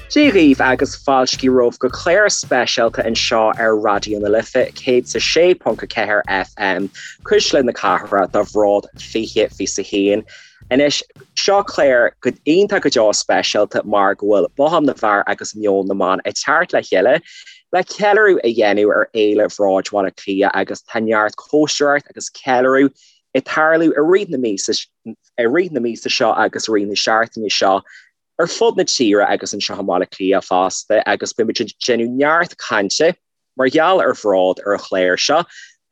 Dia dhaoibh agus fáilte romhaibh go clár speisialta anseo ar Raidió na Life 106.4 FM, Cuisle na Cathrach do Bhród 2021. Anois, seo clár go iontach go deo speisialta mar go bhfuil Bothán na bhFear agus Meon na mBan ag teacht le chéile le ceiliúradh a dhéanamh ar Fhéile Bhróid Bhaile Átha Cliath agus tá neart cóisireacht agus ceiliúradh ag tarlú i rith na míosa i rith na míosa seo agus i rith na seachtaine seo ar fud na tíre agus anseo i mBaile Átha Cliath fosta agus beimid ag déanamh neart cainte mar gheall ar Bhród ar an chlár seo.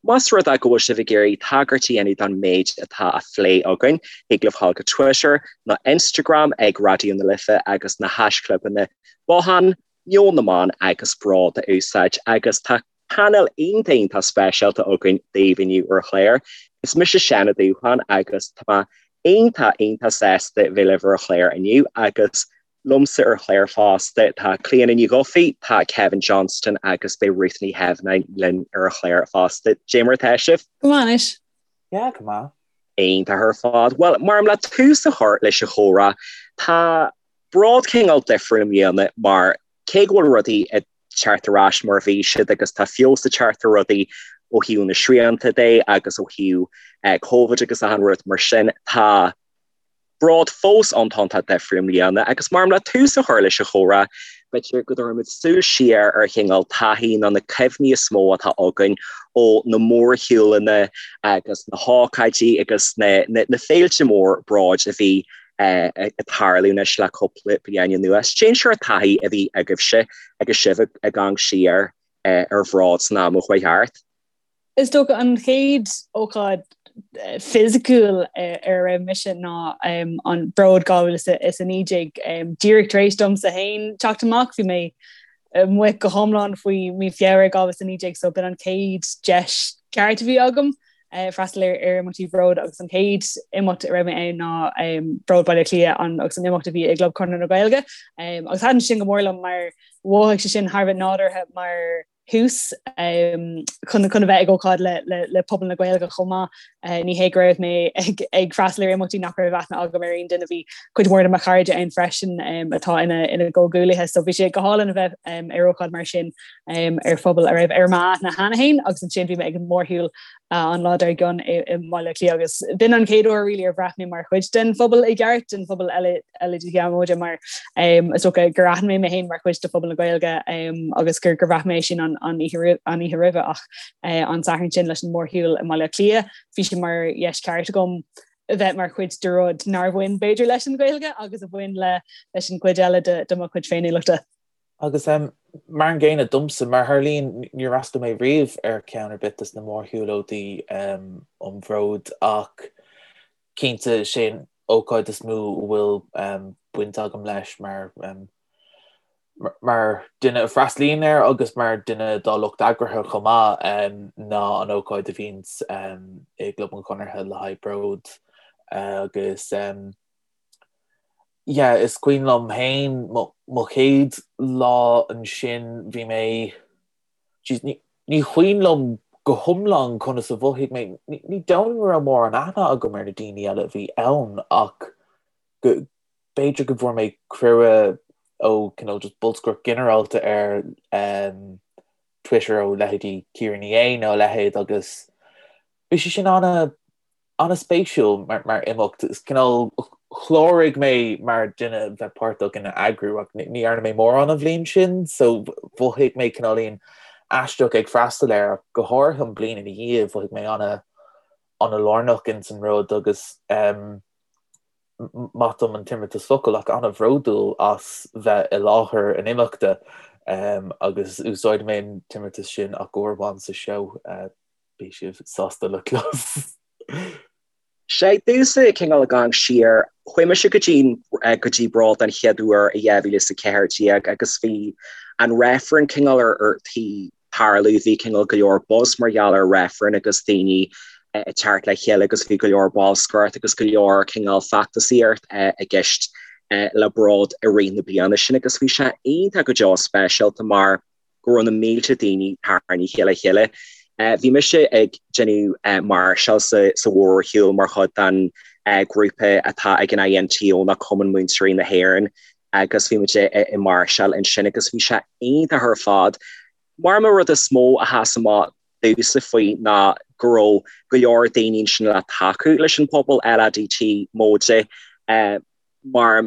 Más rud é go bhfuil sibh ag iarraidh tagairt a dhéanamh don méid atá á phlé againn, thig libh dhul go Twitter nó Instagram ag Raidió na Life agus na haischlibeanna Bothán, Meon na mBan agus Bród a úsáid agus tá painéal iontach iontach speisialta againn daoibh inniu ar an chlár. Is mise Seán Ó Dúcháin agus tá mé iontach iontach sásta bheith libh ar an chlár inniu agus liomsa ar an chlár fosta tá Clíona Ní Dhufaigh, tá Kevin Johnston agus beidh Ruth Ní Theimhneáin linn ar an chlár fosta. Dé mar atá sibh? Go maith anois. Yeah, go maith. Iontach ar fad. Bhuel, mar le tús a chur leis an chomhrá, tá Bród cineál difriúil i mbliana mar cé go bhfuil rudaí ag teacht ar ais mar a bhí siad agus tá feabhas ag teacht ar rudaí ó thaobh na srianta de agus ó thaobh Covid agus achan rud mar sin, tá Bród fós iontach difriúil i mbliana agus mar le tús a chur leis an chomhrá, b'fhéidir go dtabharfaimid súil siar ar chineál taithí nó na cuimhní is mó atá againn ó na mórshiúlanna agus na hócáidí agus na féilte mór Bróid a bhí ag tarlú anois le cúpla bliain anuas. Cén sórt taithí a bhí agaibhse agus sibh ag amharc siar ar Bhród san am a chuaigh thart? Is dócha an chéad ócáid fisiciúil ar a raibh mise ná an Bród 2019. Díreach tar éis domsa féin teacht amach, bhí mé amuigh go hiomlán faoi mí Feabhra 2019 so b'in an chéad deis ceart a bhí agam freastal ar imeachtaí Bhród agus an chéad imeacht a raibh mé ann ná Bród Baile Átha Cliath agus an imeacht a bhí i gClub Chonradh na Gaeilge agus thaitin sin go mór liom mar mhothaigh sé sin thar a bheith nádúrtha mar thús chun chun a bheith ag ócáid le le le pobal na Gaeilge chomh maith. Ní hé go raibh mé ag ag freastal ar imeachtaí nach raibh aithne agam ar aon duine, bhí cuid mhór de mo chairde ann freisin atá ina ina gcomhghuaillithe, so bhí sé go hálainn a bheith ar ócáid mar sin ar phobal a raibh ar m'aithne cheana féin agus ansin bhí mé ag an mórshiúl an lá dár gcionn i mBaile Átha Cliath agus b'in an chéad uair really ar bhraith mé mar chuid den phobal i gceart, den phobal LADT móide mar is dócha gur aithin mé mé féin mar chuid de phobal na Gaeilge agus gur gur bhraith mé sin an an oíche an oíche roimhe ach an Satharn sin leis an mórshiúl i mBaile Átha Cliath bhí sé mar dheis ceart agam a bheith mar chuid de rud nár bhain b'fhéidir leis an Ghaeilge agus a bhain le leis an gcuid eile de de mo chuid féiniúlachta. Agus mar an gcéanna domsa, mar a tharlaíonn, níor fhreastail mé riamh ar cheann ar bith des na mórshiúlóidí um Bhród ach cinnte sé an ócáid is mó a bhfuil baint agam leis mar mar duine a freastalaíonn air agus mar duine dá lucht eagraithe chomh maith ná an ócáid a bhíonns i gClub an Chonartha le haghaidh Bród agus Yeah, is cuimhin liom féin mo chéad lá ansin, bhí mé, jeez, ní, ní cuimhin liom go hiomlán conas a mhothaigh mé, ní, ní dóigh liom go raibh mórán aithne agam ar na daoine eile a bhí ann ach go, b'fhéidir go bhfuair mé cuireadh ó cineál just bolscaireacht ginearálta ar um, Twitter ó leithéidí Ciara Ní É nó a leithéid agus bhí sé sin ana an-spéisiúil mar imeacht. Is cineál chláraigh mé mar duine a bheith páirteach ina eagrú ach ní dhearna mé mórán an bhliain sin so mhothaigh mé cineáilín aisteach ag freastal air ach go háirithe an bliain ina dhiaidh mhothaigh mé ana ana-lárnach ins an rud agus maith dom an t-imeartas focal ach ana-bhródúil as bheith i láthair an imeachta agus úsáidfidh mé an t-imeartas sin ach uair amháin sa seó. Beidh sibh sásta le clos. Sé domhsa cineál ag amharc siar, chuaigh mise go dtí go dtí Bród den chéad uair i 2014 agus bhí an reifreann cineál ar ar tí tarlú, bhí cineál go leor buzz mar gheall ar reifreann agus daoine ag teacht le chéile agus bhí go leor bolscaireacht agus go leor cineál feachtasaíocht i gceist le Bród i rith na bliana sin agus bhí sé iontach go deo speisialta mar go raibh na mílte daoine tarraingthe le chéile. Bhí mise ag déanamh máirseáil sa mhórshiúl mar chuid den ghrúpa atá ag an INTO ná Cumann Múinteoirí na hÉireann. Agus bhí muid ag máirseáil ansin agus bhí sé iontach ar fad. Mar an rud is mó a sheas amach domhsa faoi ná go raibh go leor daoine ansin le tacú leis an pobal LADT móide mar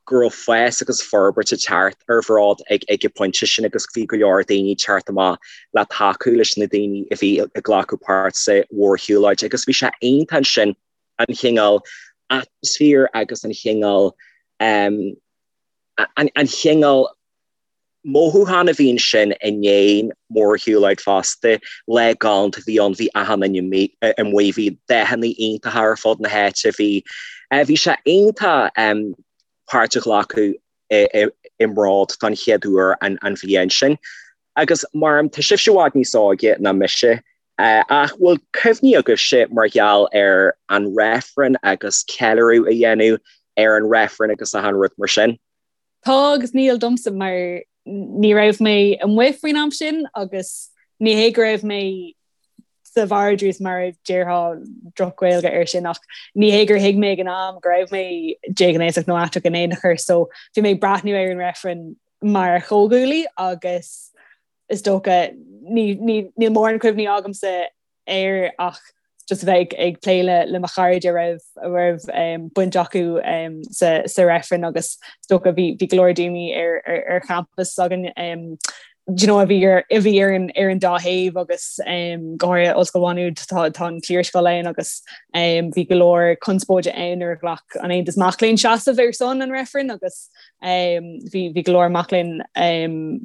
go raibh fás agus forbairt ag teacht ar Bhród ag ag an bpointe sin agus bhí go leor daoine ag teacht amach le tacú leis na daoine a bhí ag glacadh páirt sa mhórshiúlóid agus bhí sé iontach ansin an chineál atmaisféar agus an chineál an chineál mothúchán a bhí ansin i ndiaidh an mhórshiúlóid fosta. Lá galánta a bhí ann, bhí achan duine amuigh, bhí dathanna iontacha ar fud na háite, bhí bhí sé iontach páirt a ghlacadh i mBród don chéad uair an bhliain sin. Agus mar tá sibhse i bhfad níos óige ná mise, ach bhfuil cuimhní agaibhse mar gheall ar an reifreann agus ceiliúradh a dhéanamh ar an reifreann agus achan rud mar sin? Tá agus níl domsa mar ní raibh mé amuigh faoin am sin agus ní hé go raibh mé sa vardrús mar a déarfá droch-Ghaeilge air sin ach ní hé gur thuig mé ag an am go raibh mé déghnéasach nó aiteach in aon chor so bhí mé ag breathnú ar an reifreann mar chomhghuaillí agus is dócha níl mórán cuimhní agamsa air ach just a bheith ag plé le le mo chairde a raibh a raibh um, baint acu um, sa, sa reifreann agus is dócha bhí bhí go leor daoine ar, ar, ar champas againn um, do you know, a bhí ar a bhí ar an ar an dá thaobh agus um, go háirithe Ollscoil Mhá Nuad tá tá an cliarscoil ann agus um, bhí go leor conspóide ann nuair a ghlac an Aontas Mac Léinn seasamh ar son an reifrinn agus Bhí bhí go leor mac léinn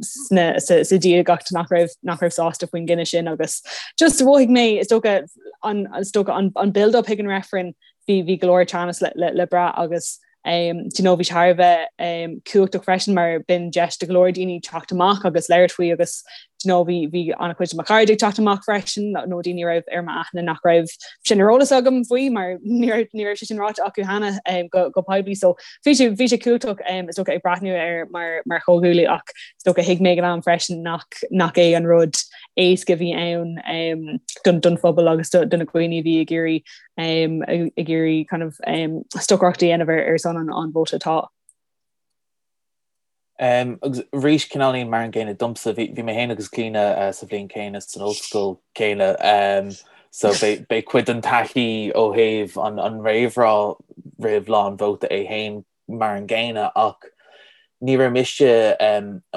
sna sa sa diagacht nach raibh nach raibh sásta faoin gcinneadh sin agus just mhothaigh mé is dócha an is dócha an an build up chuig an reifreann bhí bhí go leor teannas le le le brath agus um, do you know, bhí sé thar a bheith um, cumhachtach freisin mar b'in deis do go leor daoine teacht amach agus labhairt faoi agus do you know, bhí bhí an-chuid de mo chairde ag teacht amach freisin nó daoine a raibh ar m'aithne nach raibh sin ar eolas agam faoi mar ní raibh ní raibh sé sin ráite acu cheana um, go, go poiblí so Bhí sé bhí sé cumhachtach is dócha ag breathnú air mar mar chomhghuaillí ach is dócha thuig mé ag an am freisin nach nach é an rud éasca a bhí ann don don phobal agus do do na daoine a bhí ag iarraidh ag iarraidh kind of stocaireacht a dhéanamh ar ar son an an vóta tá. Agus arís cineáilín mar an gcéanna domsa, bhí mé féin agus Clíona sa bhliain chéanna san ollscoil chéanna so beidh cuid den taithí ó thaobh an réamhrá roimh lá an vóta é féin mar an gcéanna ach ní raibh mise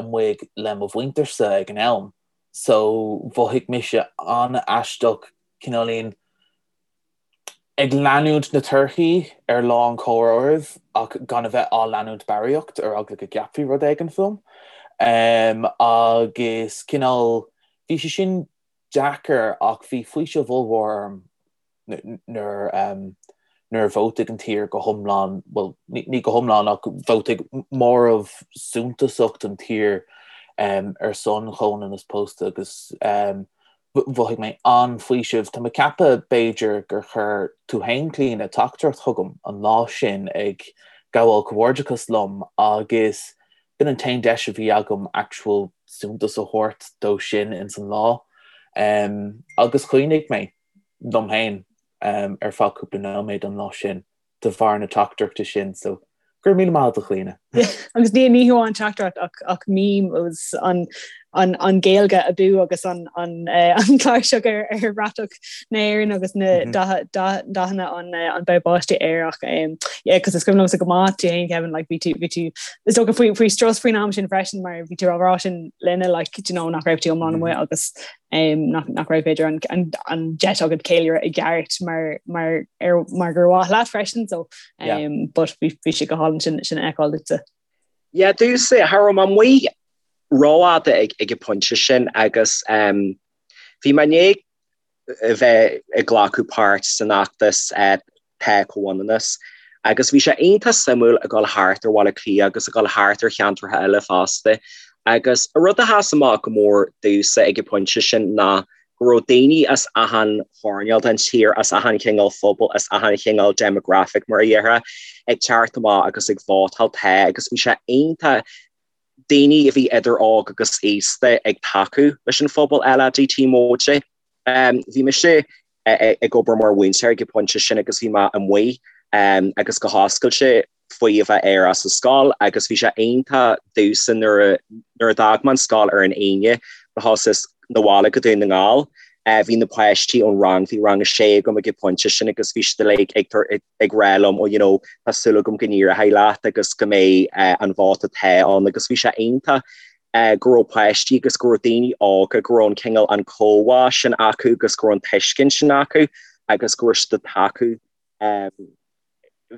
amuigh le mo mhuintirsa ag an am so mhothaigh mise an-aisteach cineáilín ag leanúint na torthaí ar lá an chomhairimh ach gan a bheith á leanúint barraíocht ar eagla go gceapfaí rud éigin fúm. Agus cineál, bhí sé sin deacair ach bhí faoiseamh ollmhór orm nuair nuair a vótaigh an tír go hiomlán, bhuel, ní go hiomlán ach vótaigh móramh suntasach den tír ar son chomhionannas pósta agus Mhothaigh mé an-fhaoiseamh. Tá mé ag ceapadh, b'fhéidir, gur chuir tú féin, Clíona, teachtaireacht chugam an lá sin ag gabháil comhghairdeachas liom agus b'in an t-aon deis a bhí agam actual suntas a thabhairt dó sin ins an lá. Agus chaoinigh mé liom féin ar feadh cúpla nóiméad an lá sin. de bharr na teachtaireachta sin so go raibh míle maith agat a Chlíona. Agus ní ní hamháin teachtaireacht ach ach meme agus an an an Gaeilge abú agus an an eh, an cláirseach ar ar bhratach na hÉireann agus na mhm. dathanna an eh, an bob báistí air ach um, yeah, cos is cuimhin liomsa go maith tú féin Kevin like bhí tú bhí tú is dócha faoi faoi strus faoin am sin freisin mar bhí tú á rá sin linne like you know nach raibh tú iomlán amuigh mhm. agus nach nach raibh b'fhéidir an an an deis agat ceiliúradh i gceart mar mar ar mar gur mhaith leat freisin so um, but bhí bhí sé go hálainn sin sin a fheiceáil duitse. Yeah, domhsa cha raibh mé amuigh rófhada ag ag an pointe sin agus um, bhí mé i ndiaidh a bheith ag glacadh páirt san fheachtas uh, Tá Comhionannas. Agus bhí sé iontach suimiúil ag dul thart ar Bhaile Átha Cliath agus ag dul thart ar cheantracha eile fosta. Agus an rud a sheas amach go mór domhsa ag an bpointe sin ná go raibh daoine as achan choirnéal den tír, as achan chineál phobal, as achan chineál demographic mar a déarfá, ag teacht amach agus ag vótáil Tá agus bhí sé iontach daoine a bhí idir óg agus aosta ag tacú leis an phobal LADT móide. Bhí mise ag obair mar mhúinteoir ag an bpointe sin agus bhí mé amuigh agus go hoscailte. faoi a bheith aerach sa scoil agus bhí sé iontach domhsa nuair a nuair a d'fhág mé an scoil ar an Aoine do thosaíos 'na bhaile go Dún na nGall. Bhí na páistí ón rang, bhí rang a sé agam ag an pointe sin agus bhí siad uilig ag ag rá liom oh you know tá súil agam go n-éireoidh leat agus go mbeidh an vóta tá ann agus bhí sé iontach go raibh páistí agus go raibh daoine óga go raibh an cineál an comhbhá sin acu agus go raibh an tuiscint sin acu agus go raibh siad ag tacú.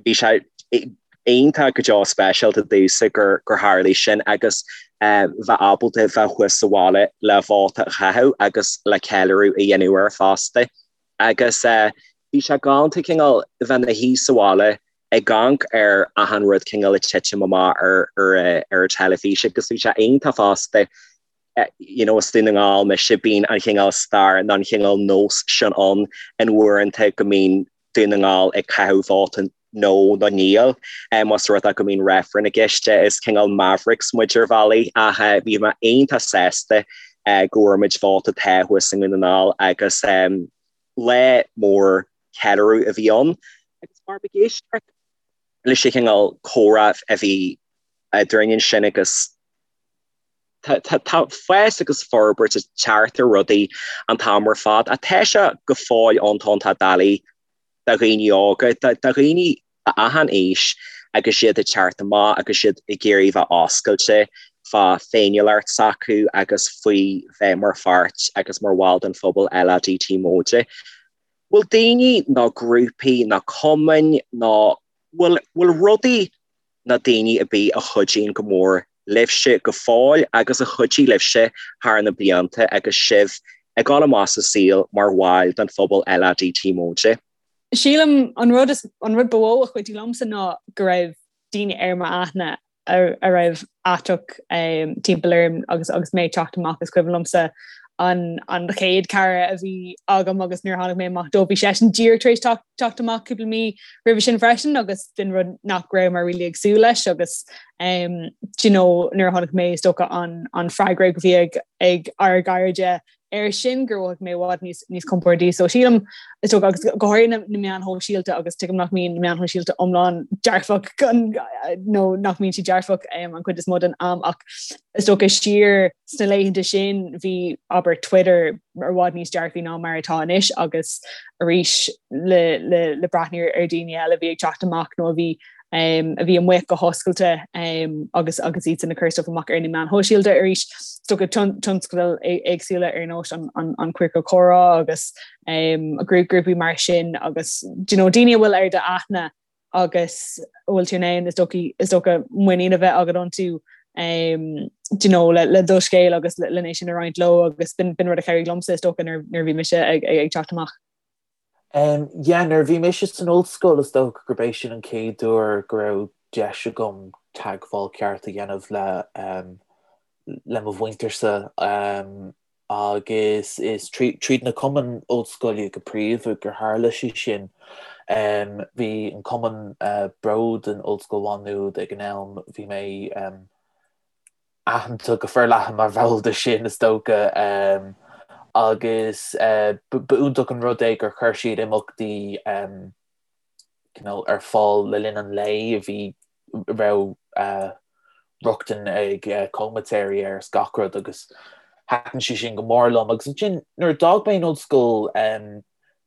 Bhí sé iontach go deo speisialta domhsa gur gur tharlaigh sin agus bheith ábalta bheith thuas sa bhaile le vóta a chaitheamh agus le ceiliúradh a dhéanamh air fosta. Agus bhí sé galánta cineál bheith ina shuí sa bhaile ag amharc ar achan rud cineál ag titim amach ar ar ar an teilifís agus bhí sé iontach fosta you know as Dún na nGall mise bíonn an chineál stair nó an chineál nós sin ann in uaireanta go mbíonn Dún na nGall ag caitheamh vóta no nó níl más rud é go mbíonn reifreann i gceist is cineál mavericks muid ar bhealaí ach bhí mé iontach sásta go bhfuair muid vóta tá thuas i nDún na nGall agus lá mór ceiliúradh a bhí ann agus mar ag éisteacht leis an chineál comhrá a bhí eadrainn ansin agus Tá fás agus forbairt ag teacht ar rudaí an t-am ar fad ach tá sé go fóill iontach doiligh do dhaoine óga, do dhaoine achan aois agus iad ag teacht amach agus iad ag iarraidh bheith oscailte fá féiniúlacht s'acu agus faoi bheith mar pháirt agus mar bhall den phobal LADT móide. Bhfuil daoine nó grúpaí nó cumainn nó bhfuil rudaí nó daoine ar bith a chuidíonn go mór libhse go fóill agus a chuidigh libhse thar na blianta agus sibh ag dul amach sa saol mar bhaill den phobal LADT móide. Sílim an rud is an rud ba mhó a chuidigh liomsa ná go raibh daoine ar m'aithne a raibh aiteach timpeall orm agus agus mé ag teacht amach is cuimhin liomsa an an chéad cara a bhí agam agus nuair a tháinig mé amach dó bhí seisean díreach tar éis teacht amach cúpla mí roimhe sin freisin agus b'in rud nach raibh mé really ag súil leis agus um, do you know, nuair a tháinig mé is dócha an, an freagra a bhí ag, ag ár gcairde air sin gur mhothaigh mé i bhfad níos, níos compordaí. So sílim is dócha agus go háirithe na, na meáin shóisialta agus tuigim nach mbíonn na meáin shóisialta iomlán dearfach nó nach mbíonn siad dearfach um, an chuid is mó den am ach is dócha siar sna laethanta sin bhí abair Twitter i bhfad níos dearfaí ná mar atá anois agus arís le, le, le breathnú ar daoine eile a bhí ag teacht amach nó a bhí um, a bhí amuigh go hoscailte um, agus agus iad san ag cur stuff amach ar na meáin shóisialta arís is dócha tionscadail éagsúla ar nós an, an, an Queercal Comhrá agus um, grúpaí mar sin agus do you know, daoine a bhfuil ar d'aithne agus a bhfuil tú in ann is dócha is dócha muinín a bheith agat iontu um, do you know, le, le do scéal agus le, le sin a roinnt leo agus b'in, b'in rud a chabhraigh liomsa is dócha nuair, nuair bhí mise ag, ag, ag teacht amach. Yeah, nuair a bhí mise san ollscoil is dócha gurb é sin an chéad uair go raibh deis agam teagmháil ceart a dhéanamh le le mo mhuintirse agus is tríd na cumainn ollscoile go príomha gur tharla sé sin. Bhí an cumann Bród in Ollscoil Mhá Nuad ag an am, bhí mé aitheanta go forleathan mar bhall de sin, is dócha, agus ba iontach an rud é gur chuir siad imeachtaí cineál ar fáil le linn an lae a bhí raibh rochtain ag comaitéirí air is gach rud agus thaitin sé sin go mór liom. Agus ansin nuair a d'fhág mé an ollscoil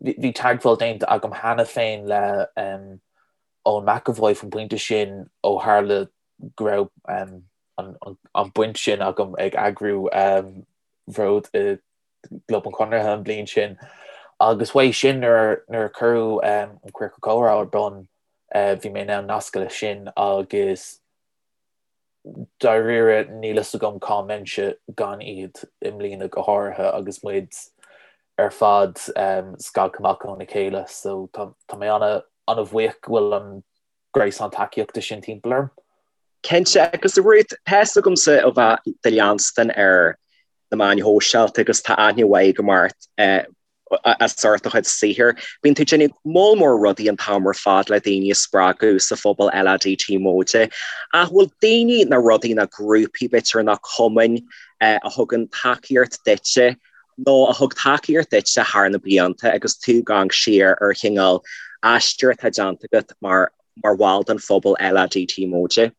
bhí teagmháil déanta agam cheana féin le Eoin McEvoy faoin bpointe sin ó tharla go raibh an baint sin agam ag eagrú Bhród i gClub an Chonartha an bhliain sin agus uaidh sin nuair a cuireadh an Queercal Comhrá ar bun bhí mé in ann nascadh leis sin agus dáiríre níl fhios agam cá mbeinnse gan iad i mbliana go háirithe agus muid ar fad scagtha amach óna chéile so tá mé ana-bhuíoch go bhfuil an gréasán tacaíochta sin timpeall orm. Cinnte, agus a Ruth, tá fhios agamsa ó bheith do leanstan ar na meáin shóisialta agus tá aithne mhaith agam ort as ucht do chuid saothair. Bíonn tú ag déanamh moll mór rudaí an t-am ar fad le daoine a spreagadh sa phobal LADT móide. Ach bhfuil daoine nó rudaí nó grúpaí b'fhéidir nó cumainn a thugann tacaíocht duitse nó a thug tacaíocht duitse thar na blianta agus tú ag amharc siar ar chineál aistear atá déanta agat mar. mar bhall den phobal LADT móide?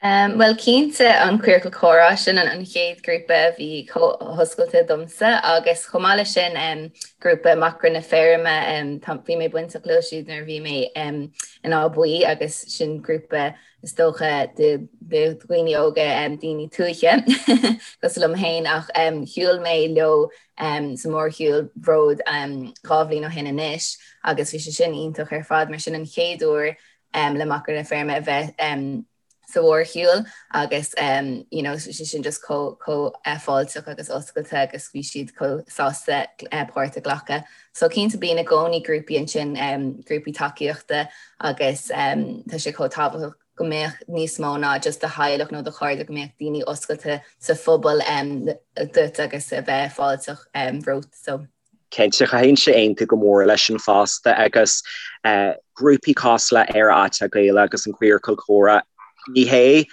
Bhuel cinnte an Queercal Comhrá, sin an chéad grúpa a bhí chomh hoscailte domsa agus chomh maith leis sin grúpa Macra na Feirme, bhí mé bainteach leo siúd nuair a bhí mé in Áth Buí agus sin grúpa is dócha de dhaoine óga, daoine tuaithe cosúil liom féin ach shiúil mé leo sa mhórshiúl Bhród 2 bhliain ó shin anois agus bhí sé sin iontach ar fad mar sin an chéad uair le Macra na Feirme a bheith sa mhórshiúl agus you know sé sin just chomh chomh fáilteach agus oscailte agus bhí siad chomh sásta páirt a ghlacadh. So cinnte bíonn i gcónaí grúpaí ansin, grúpaí tacaíochta agus tá sé chomh tábhachtach go mbeadh níos mó ná just do theaghlach nó do chairde, go mbeadh daoine oscailte sa phobal duit agus a bheith fáilteach romhat. So. Cinnte, chaithfinnse aontú go mór leis sin fosta agus grúpaí cosúil le Éire Aiteach Gaelach agus an Queercal Comhrá, ní hé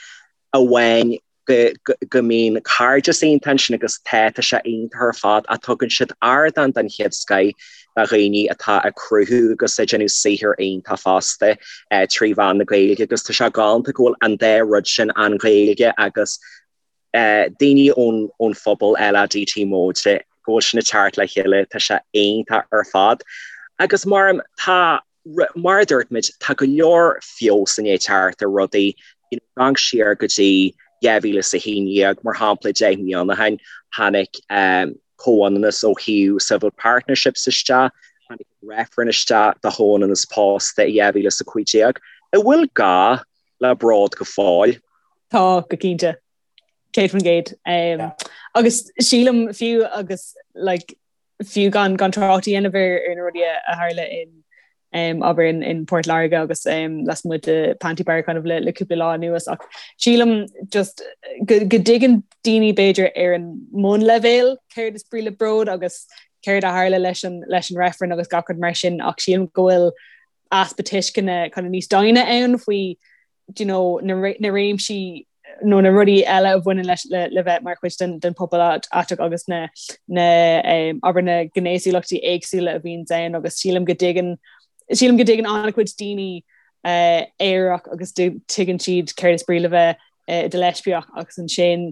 amháin go mbíonn cairdeas iontach ansin agus tá, tá sé iontach ar fad ach tugann siad ardán den chéad scoith do dhaoine atá ag cruthú agus ag déanamh saothar iontach fosta trí mheán na Gaeilge agus tá sé galánta go bhfuil an dá rud sin, an Ghaeilge agus daoine ón phobal LADT móide, go bhfuil sin ag teacht le chéile, tá sé iontach ar fad. Agus mar, tá, mar a dúirt muid, tá go leor feabhas i ndiaidh teacht ar rudaí, you know, amharc siar go dtí 2011, mar shampla, 10 mbliana ó shin, tháinig comhionannas ó thaobh civil partnerships isteach, tháinig reifreann isteach do chomhionannas pósta i 2015. An bhfuil gá le Bród go fóill? Tá, go cinnte. 100%. Agus sílim fiú agus like, fiú gan gan trácht a dhéanamh ar ar na rudaí a tharla in um, abair in, in Port Láirge agus um, lasmuigh de Panti Bar kind of le, le cúpla lá anuas ach sílim just go, go dtuigeann daoine b'fhéidir ar an mbunleibhéal céard is brí le bród agus céard a tharla leis an, leis an reifreann agus gach rud mar sin ach sílim go bhfuil easpa tuisceana kind of níos doimhne ann faoi do you know, na, na réimsí nó na rudaí eile a bhaineann leis le, le bheith mar chuid den, den pobal aiteach agus na, na um, abair na gnéasúlachtaí éagsúla a bhíonn ann agus sílim go dtuigeann sílim go dtuigeann an-chuid daoine uh, aerach agus tuigeann siad céard is brí le bheith uh, i do leispiach agus ansin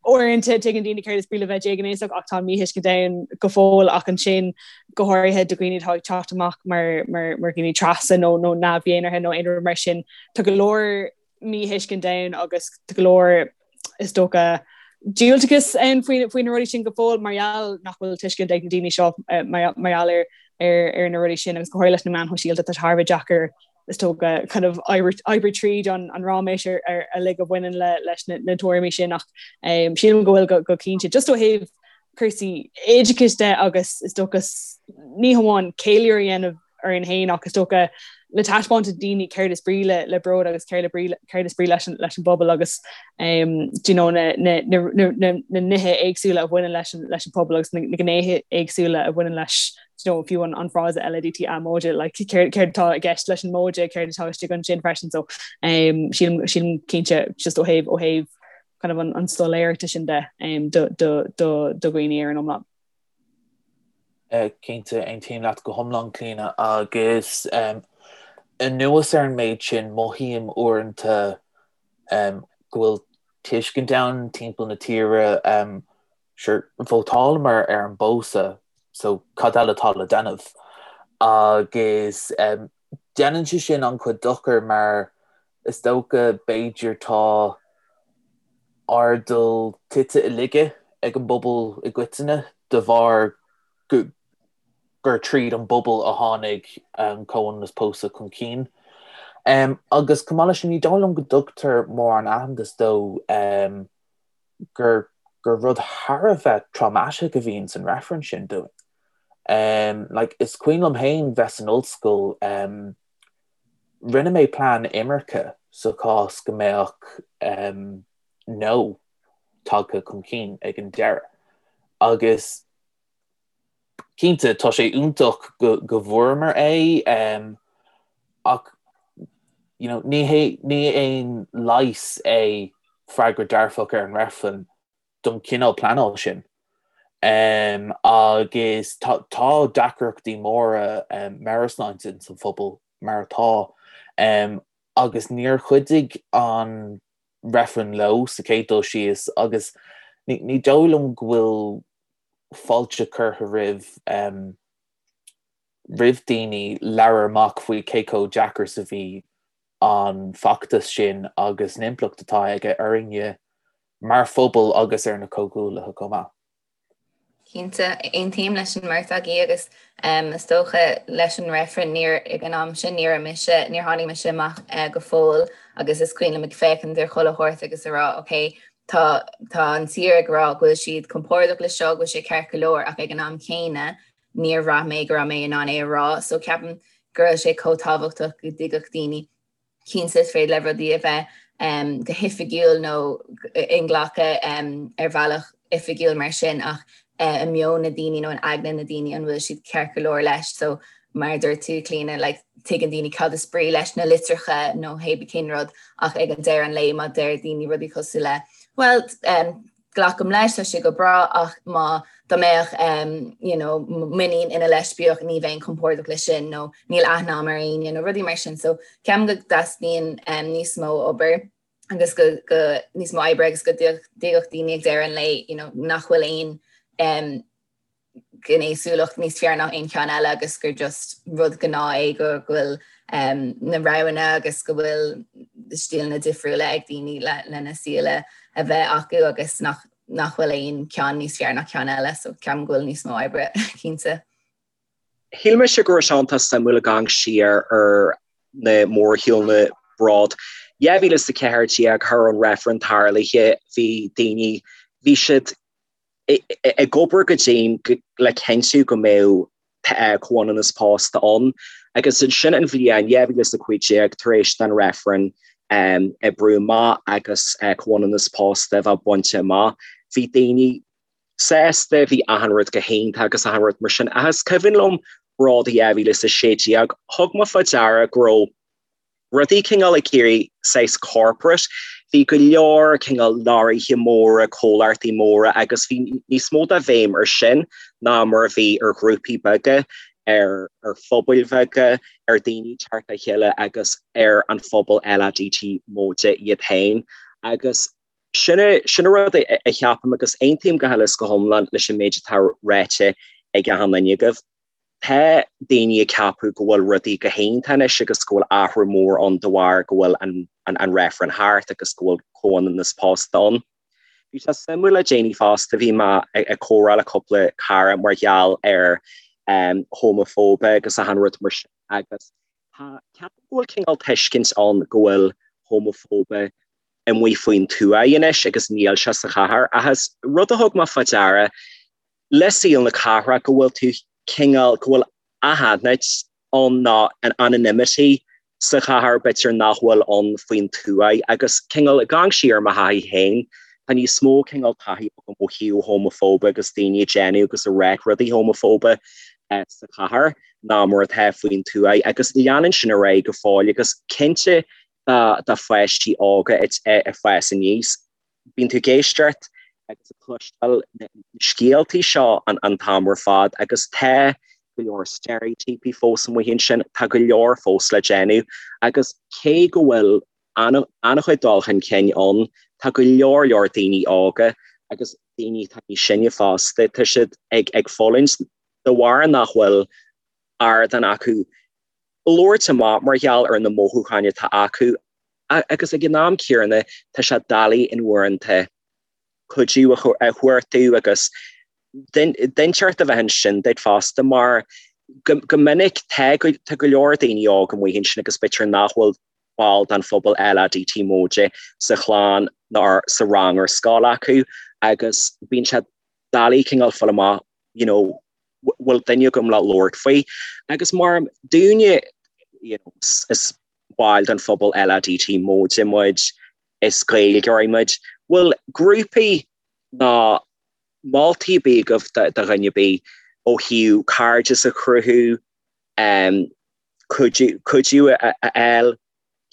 Uaireanta tuigeann daoine céard is brí le bheith déghnéasach ach tá míthuiscint ann go fóill ach ansin go háirithe do dhaoine atá ag teacht amach mar mar mar dhaoine trasa nó nó neamh-dhénártha nó aon rud mar sin tá go leor míthuiscint ann agus tá go leor is dócha diúltachas ann faoi faoi na rudaí sin go fóill mar gheall nach bhfuil tuiscint ag na daoine seo mar mar gheall ar ar ar na rudaí sin agus go háirithe leis na meáin shóisialta tá sé thar a bheith deacair is dócha kind of oibriú tríd an an ráiméis ar ar uilig a bhaineann le leis na na tuairimí sin ach um, sílim go bhfuil go, go cinnte just ó thaobh cúrsaí oideachais de agus is dócha ní hamháin ceiliúradh a dhéanamh orainn féin ach is dócha le taispeáint do daoine céard is brí le, le bród agus céard, le brí, céard is brí leis an, leis an bpobal agus um, do you know, na, na, na, na, na, na nithe éagsúla a bhaineann leis an, leis an pobal agus na, na gnéithe éagsúla a bhaineann leis you know, fiú an, an frása LADTA móide, like, céard, céard atá i gceist leis an móide, céard atá istigh ansin freisin, so um, sílim, sílim cinnte just ó thaobh, ó thaobh kind of an, an soiléireachta sin de um, do, do, do, do dhaoine ar an iomlán. Uh, cinnte aontaím leat go hiomlán Clíona agus um, anuas ar an méid sin mothaím uaireanta um, go bhfuil tuiscint ann timpeall na tíre um, Sure, vótálamar ar an bpósadh so cad eile atá le déanamh? Agus déanann sé sin an-chuid dochair mar is dócha b'fhéidir tá airdeall tite i laige ag an bpobal i gcoitinne de bharr gur tríd an bpobal a tháinig an comhionannas pósadh chun cinn. Agus chomh maith leis sin ní dóigh liom go dtugtar mórán aitheantas dó gur gur rud thar a bheith traumatic a bhíonn san reifreann sin dúinn. Um, like, is cuimhin liom féin bheith san ollscoil, um, rinne mé plean imirce sa chás go mbeadh um, no tagtha chun cinn ag an deireadh. Agus Cinnte, tá sé iontach go bhfuaireamar é ach you know ní hé ní aon leigheas é freagra dearfach ar an reifreann don chineál pleanáil sin. Agus tá tá deacrachtaí móra meabhairshláinte ins an phobal mar atá. Agus níor chuidigh an reifreann leo sa chéad dul síos agus ní dóigh liom go bhfuil fáilte curtha roimh roimh daoine labhair amach faoi cé chomh deacair is a bhí an feachtas sin agus an impleacht atá aige orainne mar phobal agus ar na comhghuaillithe chomh maith. Cinnte, aontaím leis an mbeirt agaibh agus is dócha leis an reifreann níor, ag an am sin ní raibh mise, níor tháinig mise amach go fóill agus is cuimhin liom ag féachaint ar chuile shórt agus a rá ok, tá, tá an tír ag rá go bhfuil siad compordach le seo, go bhfuil sé ceart go leor ach ag an am céanna níor bhraith mé go raibh mé in ann é a rá so ceapaim go raibh sé chomh tábhachtach go dtuigfeadh daoine Cinnte, is féidir le rudaí a bheith go hoifigiúil nó inghlactha ar bhealach oifigiúil mar sin ach i meon na daoine nó in aigne na daoine an bhfuil siad ceart go leor leis. So mar a dúirt tú, Clíona, like, tuigeann daoine cad is brí leis na litreacha nó hébí cén rud ach ag an deireadh an lae má deir daoine rudaí cosúil le well, um, glacaim leis, tá sé go breá ach má dá mbeadh you know m'iníon ina leispiach ní bheinn compordach leis sin nó níl aithne agam ar éinne nó rudaí mar sin so ceapaim go dteastaíonn níos mó obair agus go go níos mó oibre agus go dtuigfeadh daoine ag deireadh an lae you know nach bhfuil aon um, gnéasúlacht níos fearr ná aon cheann eile agus gur just rud gnáth é go bhfuil na roghanna agus go bhfuil stíleanna difriúla ag daoine lena saol a bheith acu agus nach nach bhfuil aon cheann níos fearr ná ceann eile so ceapaim go bhfuil níos mó oibre cinnte. Shíl mise go raibh sé iontach suimiúil ag amharc siar ar na mórshiúlanna Bród 2014 thar an reifreann tarlaithe bhí daoine bhí siad ag obair go dian le cinntiú go mbeadh comhionannas pósta ann agus ansin an bhliain 2015 tar éis don reifreann oibriú amach agus comhionannas pósta a bheith bainte amach, bhí daoine sásta, bhí achan rud go hiontach agus achan rud mar sin. Ach is cuimhin liom Bród 2016, thug mé fá deara go raibh rudaí cineál ag éirí saghas corporate. Bhí go leor cineál leoraithe móra, comhlachtaí móra agus bhí níos mó de bhéim ar sin ná mar a bhí ar ghrúpaí beaga, ar ar phobail bheaga, ar daoine teacht le chéile agus ar an phobal LADT móide iad féin. Agus sin sin an rud a cheapaim agus aontaím go huile is go hiomlán leis an méid atá ráite ag achan duine agaibh. Tá daoine ag ceapadh go bhfuil rudaí go hiontach anois agus go bhfuil athrú mór ann de bharr go bhfuil an reifreann thart agus go bhfuil comhionannas pósta ann. Bhí sé suimiúil le déanaí fosta, bhí mé ag comhrá le cúpla cara mar gheall ar homafóibe agus achan rud mar sin agus tá, ceapaim go bhfuil cineál tuiscint ann go bhfuil homafóibe amuigh faoin tuaith anois agus níl sé sa chathair ach is rud a thug mé fá deara le saol na cathrach go bhfuil tú cineál, go bhfuil anaithnid ann nó an anonymity sa chathair b'fhéidir nach bhfuil ann faoin tuaith agus cineál ag amharc siar ar mo thaithí féin, tá níos mó cineál taithí agam ó thaobh homafóibe agus daoine ag déanamh agus ag rá rudaí homafóibe sa chathair ná mar atá faoin tuaith agus leanann sin ar aghaidh go fóill agus cinnte do pháistí óga ag fás aníos. Bíonn tú ag éisteacht agus ag cloisteáil na scéaltaí seo an t-am ar fad agus tá go leor steiréitíopaí fós amuigh ansin, tá go leor fós le déanamh agus cé go bhfuil an-chuid dul chun cinn ann, tá go leor leor daoine óga agus daoine atá níos sine fosta, tá siad ag fulaingt de bharr nach bhfuil ardán acu labhairt amach mar gheall ar na mothúcháin atá acu agus ag an am céanna tá sé doiligh in uaireanta cuidiú a chuartú agus duine inteacht a bheith ansin duit fosta mar go minic tá go leor daoine óga amuigh ansin agus b'fhéidir nach bhfuil ball den phobal LADT móide sa chlann ná sa rang ar scoil acu agus bíonn sé doiligh cineál fáil amach you know bhfuil duine agam le labhairt faoi. Agus mar dúinne, you know, is baill den phobal LADT móide muid, is Gaeilgeoirí muid, bhfuil grúpaí ná moltaí ar bith agaibh do dhuine ar bith ó thaobh cairdeas a chruthú, cuidiú a fháil,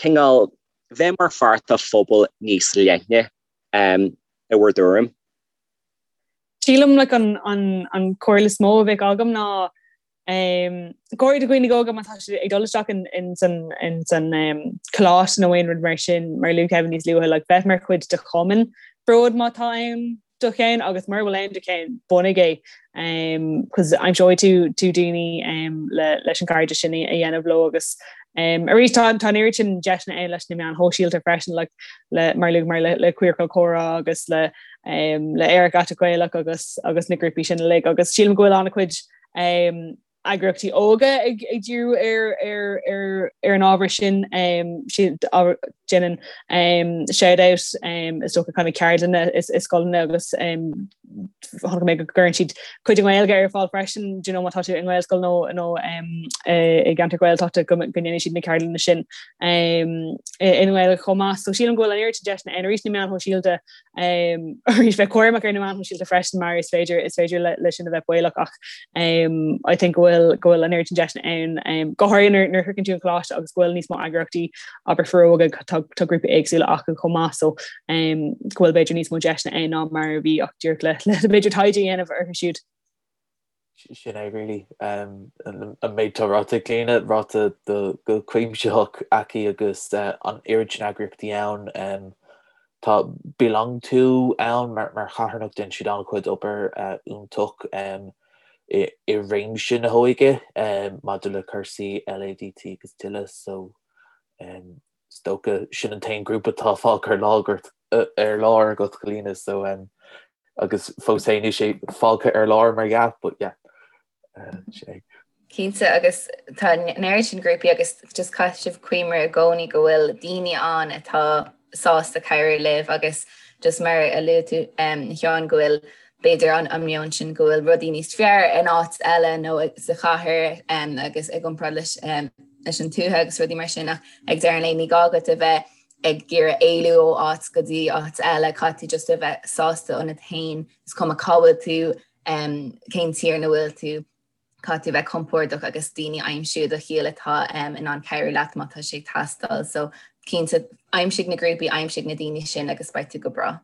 cineál bheith mar pháirt de phobal níos leithne, i bhur dtuairim? Sílim like an an an comhairle is mó a bheadh agam ná. Go háirithe do dhaoine óga má tá siad ag dul isteach in san in san coláiste nó aon rud mar sin mar a luaigh Kevin níos luaithe like bheith mar chuid de chumann Bród má tá ann do cheann agus mura bhfuil ann do cheann bunaigh é cos aimseoidh tú tú daoine le leis an gcairdeas sin a dhéanamh leo agus arís tá tá an oiread sin deiseanna ann leis na meáin shóisialta freisin like le mar luaigh mar le le Queercal Comhrá agus le le Aerach Aiteach Gaelach agus agus na grúpaí sin uilig agus sílim go bhfuil an-chuid eagraíochtaí óga ag díriú ar an ábhar sin. Déanann Shout Out is dócha kind of ceardlanna i scoileanna agus chonaic mé go gcuireann siad cuid i nGaeilge ar fáil freisin, do you know, má tá tú i nGaelscoil nó nó i gceantar Gaeltachta go ndéanann siad na ceardlanna sin i nGaeilge chomh maith. So sílim go bhfuil an oiread sin deiseanna ann arís na meáin shóisialta Arís bheith cúramach ar na meáin shóisialta freisin mar is féidir is féidir le sin a bheith baolach ach I think go bhfuil go bhfuil an oiread sin deiseanna ann go háirithe nuair nuair a shroicheann tú an coláiste agus go bhfuil níos mó eagraíochtaí abair foróige tá tá grúpaí éagsúla acu chomh maith so go bhfuil b'fhéidir níos mó deiseanna ann ná mar a bhí ach díreach le le b'fhéidir taighde a dhéanamh orthu siúd. Sin é really. An méid atá ráite ag Clíona, ráite go cuimsitheach aici agus an oiread sin eagraíochtaí ann. Tá Belong To ann mar charthanacht, déanann siad an-chuid obair iontach i réimse na hóige maidir le cúrsaí LADT agus tuilleadh so is dócha sin an t-aon grúpa atá fágtha ar lár ar lár agat Clíona so agus fós féin níl sé fágtha ar lár mar dhea but yeah sin é. Cinnte agus tá an oiread sin grúpaí agus just caithfidh sibh cuimhneamh i gcónaí go bhfuil daoine ann atá sásta cabhrú libh agus just mar a luaigh tú a Sheáin go bhfuil b'fhéidir an an meon sin go bhfuil rudaí níos fearr in áit eile nó sa chathair agus i gcomparáid leis leis an tuath agus rudaí mar sin ach ag deireadh an lae ní gá duit a bheith ag iarraidh éalú ó áit go dtí áit eile, caithfidh tú just a bheith sásta ionat féin, is cuma cá bhfuil tú, cén tír ina bhfuil tú, caithfidh tú a bheith compordach agus daoine a aimsiú i do shaol atá in ann cabhrú leat má tá sé ag teastáil. So cinnte aimsigh na grúpaí, aimsigh na daoine sin agus beidh tú go breá.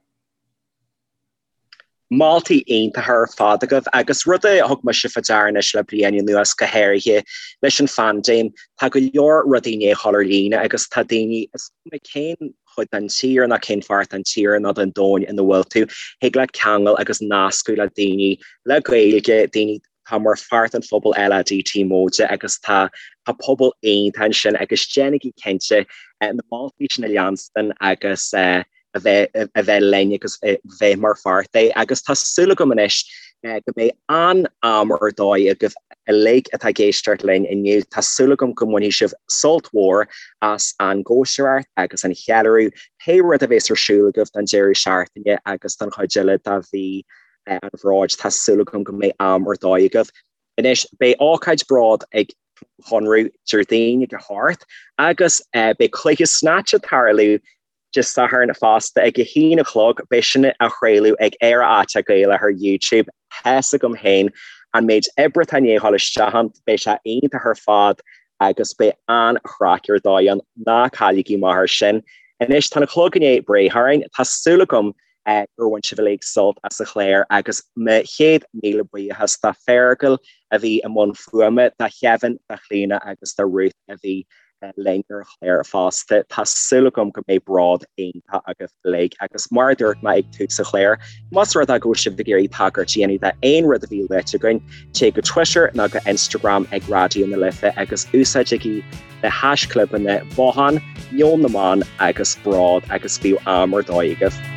Moltaí iontacha ar fad agaibh agus rud a thug mise fá deara anois le bliain anuas go háirithe leis an phaindéim, tá go leor rudaí i ndiaidh a dhul ar líne agus tá daoine, is cuma cén chuid den tír ná cén pháirt den tír nó den domhan ina bhfuil tú, thig leat ceangal agus nascadh le daoine le Gaeilge, daoine atá mar pháirt den phobal LADT móide agus tá tá pobal iontach ansin agus déanaigí cinnte na moltaí sin a leanstan agus a bheith a bheith linn agus bheith mar pháirt de agus tá súil agam anois go mbeidh an-am ar dóigh agaibh uilig atá ag éisteacht linn inniu. Tá súil agam go mbainfidh sibh sult mhór as an gcóisireacht agus an cheiliúradh, pé rud a bheas ar siúl agaibh don deireadh seachtaine agus don chuid eile de mhí an Bhróid. Tá súil agam go mbeidh am ar dóigh agaibh. Anois, beidh ócáid Bród ag Conradh Déardaoin ag a hocht agus beidh cluiche Snatch ag tarlú Dé Sathairn fosta ag a haon a chlog. Beidh sin á chraoladh ag Aerach Aiteach Gaelach ar YouTube. Tá's agam féin an méid oibre atá i ndiaidh a dhul isteach ann, beidh sé iontach ar fad agus beidh an-chraic ar dóigh ann. Ná cailligí amach air sin. Anois tá an clog i ndiaidh breith orainn. Tá súil agam gur bhain sibh uilig sult as an chlár agus mo chéad míle buíochas do Feargal a bhí i mbun fuaime, do Kevin, do Chlíona agus do Ruth a bhí linn ar an chlár fosta. Tá súil agam go mbeidh bród iontach agaibh uilig agus mar a dúirt mé ag tús an chláir, más rud é go bhfuil sibh ag iarraidh tagairt a dhéanamh d'aon rud a bhí luaite againn, téigh go Twitter nó go Instagram ag Raidió na Life agus úsáidigí na haischlibeanna Bothán, Meon na mBan agus Bród agus bíodh am ar dóigh agaibh.